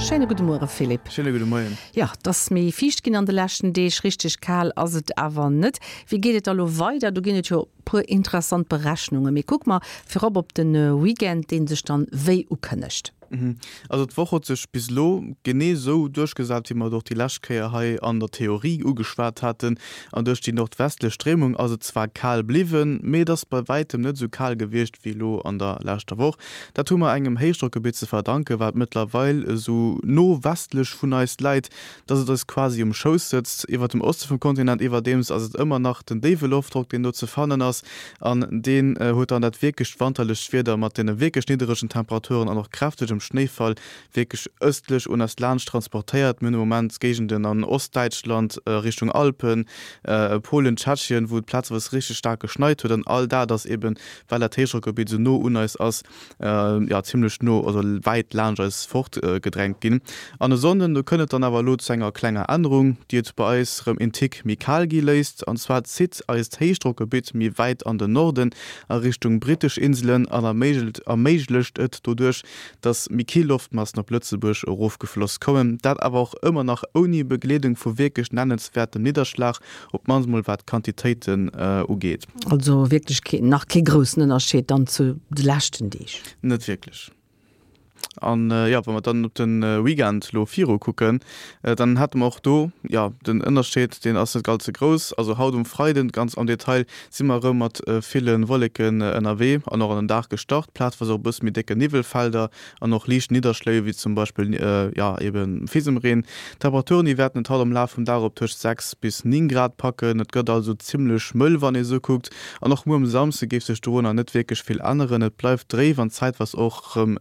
Schéine gudde Muere Philippe. Schéine gudde Moien. Jo, et ass méi fiicht ginn an de leschten Deeg, richteg kal ass et awer net. Wéi geet et da lo weider? Do ginn et jo e puer interessant Berechnungen. Mee kucke mer virop op de Weekend, dee sech dann wéi ukënnegt. Also d'Woch huet sech bis elo genee esou duerchgesat, wéi mer et och déi lescht Kéier hei an der Theorie ugeschwat haten. An duerch déi nordwestlech Stréimung ass et zwar kal bliwwen, mee et ass bei wäitem net esou kal gewiescht wéi elo an der leschter Woch. Dat hu mer engem Héichdrockgebitt ze verdanken, wat mëttlerweil esou no westlech vun eis läit, dass et eis quasi um Schouss sëtzt. Iwwert dem Oste vum Kontinent iwwerdeems ass et ëmmer nach den déiwe Loftdrock, deen do ze fannen ass, an deen huet dann dat wierklecht wanterlecht Wieder mat deene wierklech nidderegen Temperaturen an och kräftegem Schnéifall wierklech ëstlech un eis laanscht transportéiert. Mir hunn de Moment Géigenden an Ostdäitschland, Richtung Alpen, Polen, Tschechien, wou et plazeweis richteg staark geschneit huet, an all dat ass eben, well dat Héichdrockgebitt esou no un eis ass, jo zimlech no, also wäit laanscht eis fort gedrängt ginn. An e Sonnden, do kënnt et dann awer elo zu enger klenger Ännerung, déi et bei eis rëm een Tick méi kal gi léisst. An zwar zitt eist Héichdrockgebitt méi wäit an den Norden a Richtung brittesch Inselen an erméiglecht et doduerch, dass méi kill Loftmassen op Lëtzebuerg erofgefloss kommen. Dat awer och ëmmer nach ouni Begleedung vu wierklech nennenswäertem Nidderschlag, op d'mannst mol wat d'Quantitéiten ugeet. Also wierklech keen, nach kee groussen Ënnerscheed dann zu de leschten Deeg? Net wierklech. An jo, wa mer dann op de Weekend elo viru kucken, dann hätte mer och do, jo, den Ënnerscheed, deen ass net ganz ze grouss. Also haut um Freiden, ganz am Detail, si mer erëm mat ville Wolleken ënnerwee an och an den Dag gestart, plazeweis och e bësse méi décke Niwwelfelder an och liicht Nidderschléi wéi zum Beispill jo eben Fisemreen. D'Temperaturen déi wäerten et haut am Laf vum Dag op tëscht 6 bis 9 Grad packen. Et gëtt also zimmlech mëll wann ee sou kuckt an och muer um Samsde géif sech dorunner net wierklech vill änneren. Et bleift dréif an zäitweis och rëm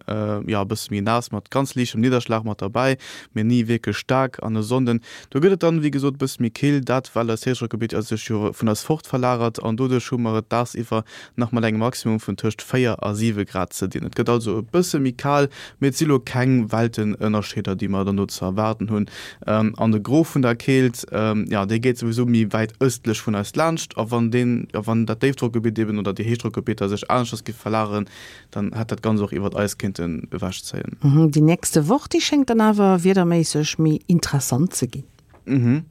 jo e bësse méi naass mat ganz liichtem Nidderschlag mat derbäi, mee ni wierklech staark. An e Sonnden do gëtt et dann wéi gesot e bësse méi kill, dat well eist Héichdrockgebitt sech jo vun eis fort verlagert an doduerch hu mer et dagsiwwer nach mat engem Maximum vun tëscht 4 a 7 Grad ze dinn. Et gëtt also e bësse méi kal, mee et si lo keng Weltenënnerscheeder, déi mer dann do ze erwaarden hunn. An de Gros vun der Keelt, jo, dee geet souwisou méi wäit ëstlech vun eis laanscht. A wann deen, jo, wann dat Déifdrockgebitt eben oder déi Héichdrockgebitter sech aneschters géife verlageren, dann hätt dat Ganzt och iwwert eis kéinten ewechzéien. Déi nächste Woch, déi schéngt dann awer wiederméisseg méi interessant ze ginn.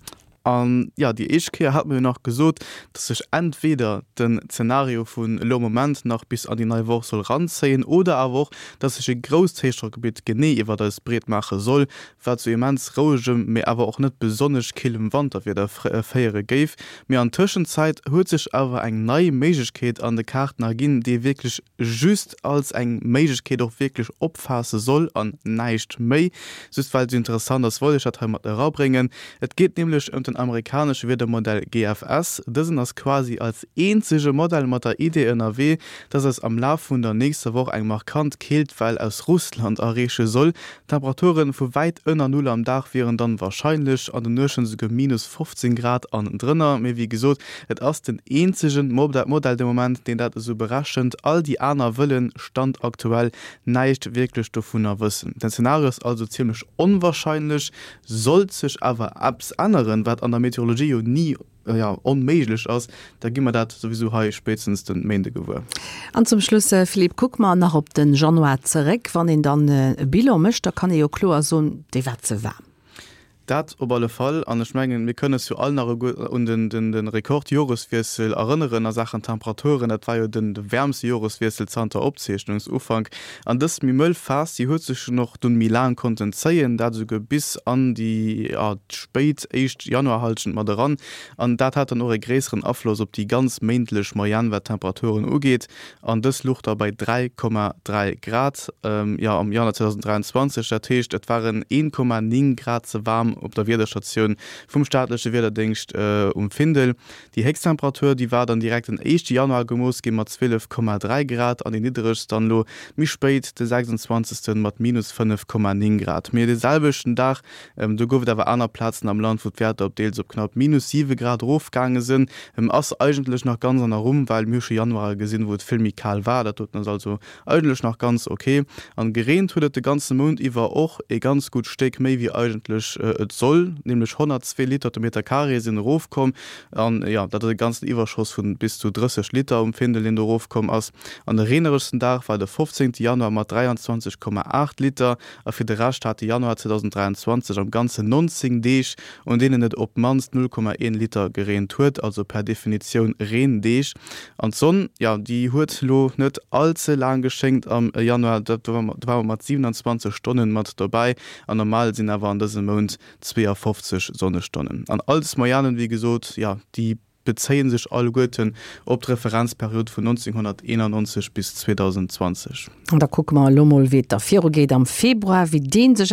An jo, déi éischt Kéier hat mer jo nach gesot, dass sech entweder den Zenario vun elo am Moment nach bis an déi nei Woch soll ranzéien oder awer och, dass sech e grousst Héichdrockgebitt genee iwwert eis breet maache soll, wat zu immens rouegem, mee awer och net besonnesch killem Wanterwieder féiere géif. Mee an Tëschenzäit huet sech awer eng nei Méiglechkeet an de Kaarten erginn, déi ee wierklech just als eng Méiglechkeet och wierklech opfaasse soll an näischt méi. Just well et esou interessant ass, wollt ech dat hei mat erabréngen. Et geet nämlech ëm den amerikanesche Wiedermodell GFS. Dësen ass quasi als eenzege Modell mat der Idee ënnerwee, dass eis am Laf vun der nächster Woch eng markant Keeltwell aus Russland erreeche soll. Temperature vu wäit ënner Null am Dag wieren dann warscheinlech, an den Nuechten esouguer minus 15 Grad an drënner. Mee wéi gesot, et ass den eenzegen Modell de Moment, deen dat esou berechent. All déi aner wëllen, Stand aktuell, näischt wierklech dovunner wëssen. Den Zenario ass also zimmlech onwarscheinlech. Sollt sech awer eppes änneren, wat an der Meteorologie jo ni, jo, onméiglech ass, da gi mer dat souwisou hei spéitstens de Méinde gewuer. An zum Schluss, Philippe, kucke mer nach op de Januar zeréck. Wann een dann e Bilan mécht, da kann ee jo kloer soen, dee war ze waarm. Dat op alle Fall. An ech mengen, mir kënnen eis jo all nach un de Rekordjoreswiessel erënneren a Saachen Temperaturen. Dat war jo de wäermste Joreswiessel zanter Opzeechnungsufank. An dës méi mëll Phas, déi huet sech och dunn méi laang konnten zéien, dat esouguer bis an déi spéit éischt Januarhallschent mat eran. An dat hat dann och e gréisseren Afloss op déi ganz méintlech Moyenne, wat d'Temperaturen ugeet. An dës luch da bei 3,3 Grad, jo, am Januar 2023. Dat heescht, et waren 1,9 Grad ze waarm op der Wiederstatioun vum staatleche Wiederdéngscht um Findel. Déi héchst Temperatur, déi war dann direkt den éischte Januar gemooss gi mat 12,3 Grad an déi nidderegst dann elo méi spéit de 26. mat minus 5,9 Grad. Mee de selwechten Dag, do gouf et awer aner Plazen am Land, wou d'Wäerter op deels op knapp minus 7 Grad erofgaange sinn. Ass eigentlech nach ganz an der Rumm, well mir hu scho Januare gesinn, wou et vill méi kal war. Dat doten ass also eigentlech nach ganz ok. An gereent huet et de ganze Mount iwwer och e ganz gutt Stéck méi wéi eigentlech. et soll, nämlech 102 Liter de Meter Carré sinn erofkomm. An jo, dat ass e ganzen Iwwerschoss vu bis zu 30 Liter um Findel, deen do erofkomm ass. An de reeneregsten Dag war de 15 Januar mat 23,8 Liter. A fir de Rescht hat de Januar 2023 am Ganzen 19 Deeg, un deenen et op d'mannst 0,1 Liter gereent huet, also per Definitioun Reendeeg. An d'Sonn, jo, déi huet lo net all ze laang geschéngt am Januar, do ware mer mat 27 Stonnen mat dobäi an normal sinn awer an dësem Mount 52 Sonnestonnen. An all des Moyennen, wéi gesot, jo, déi bezéie sech alleguerten op d'Referenzperiod vun 1991 bis 2020. An da kucke mer elo mol, wéi et da virugeet am Februar, wéi dee sech.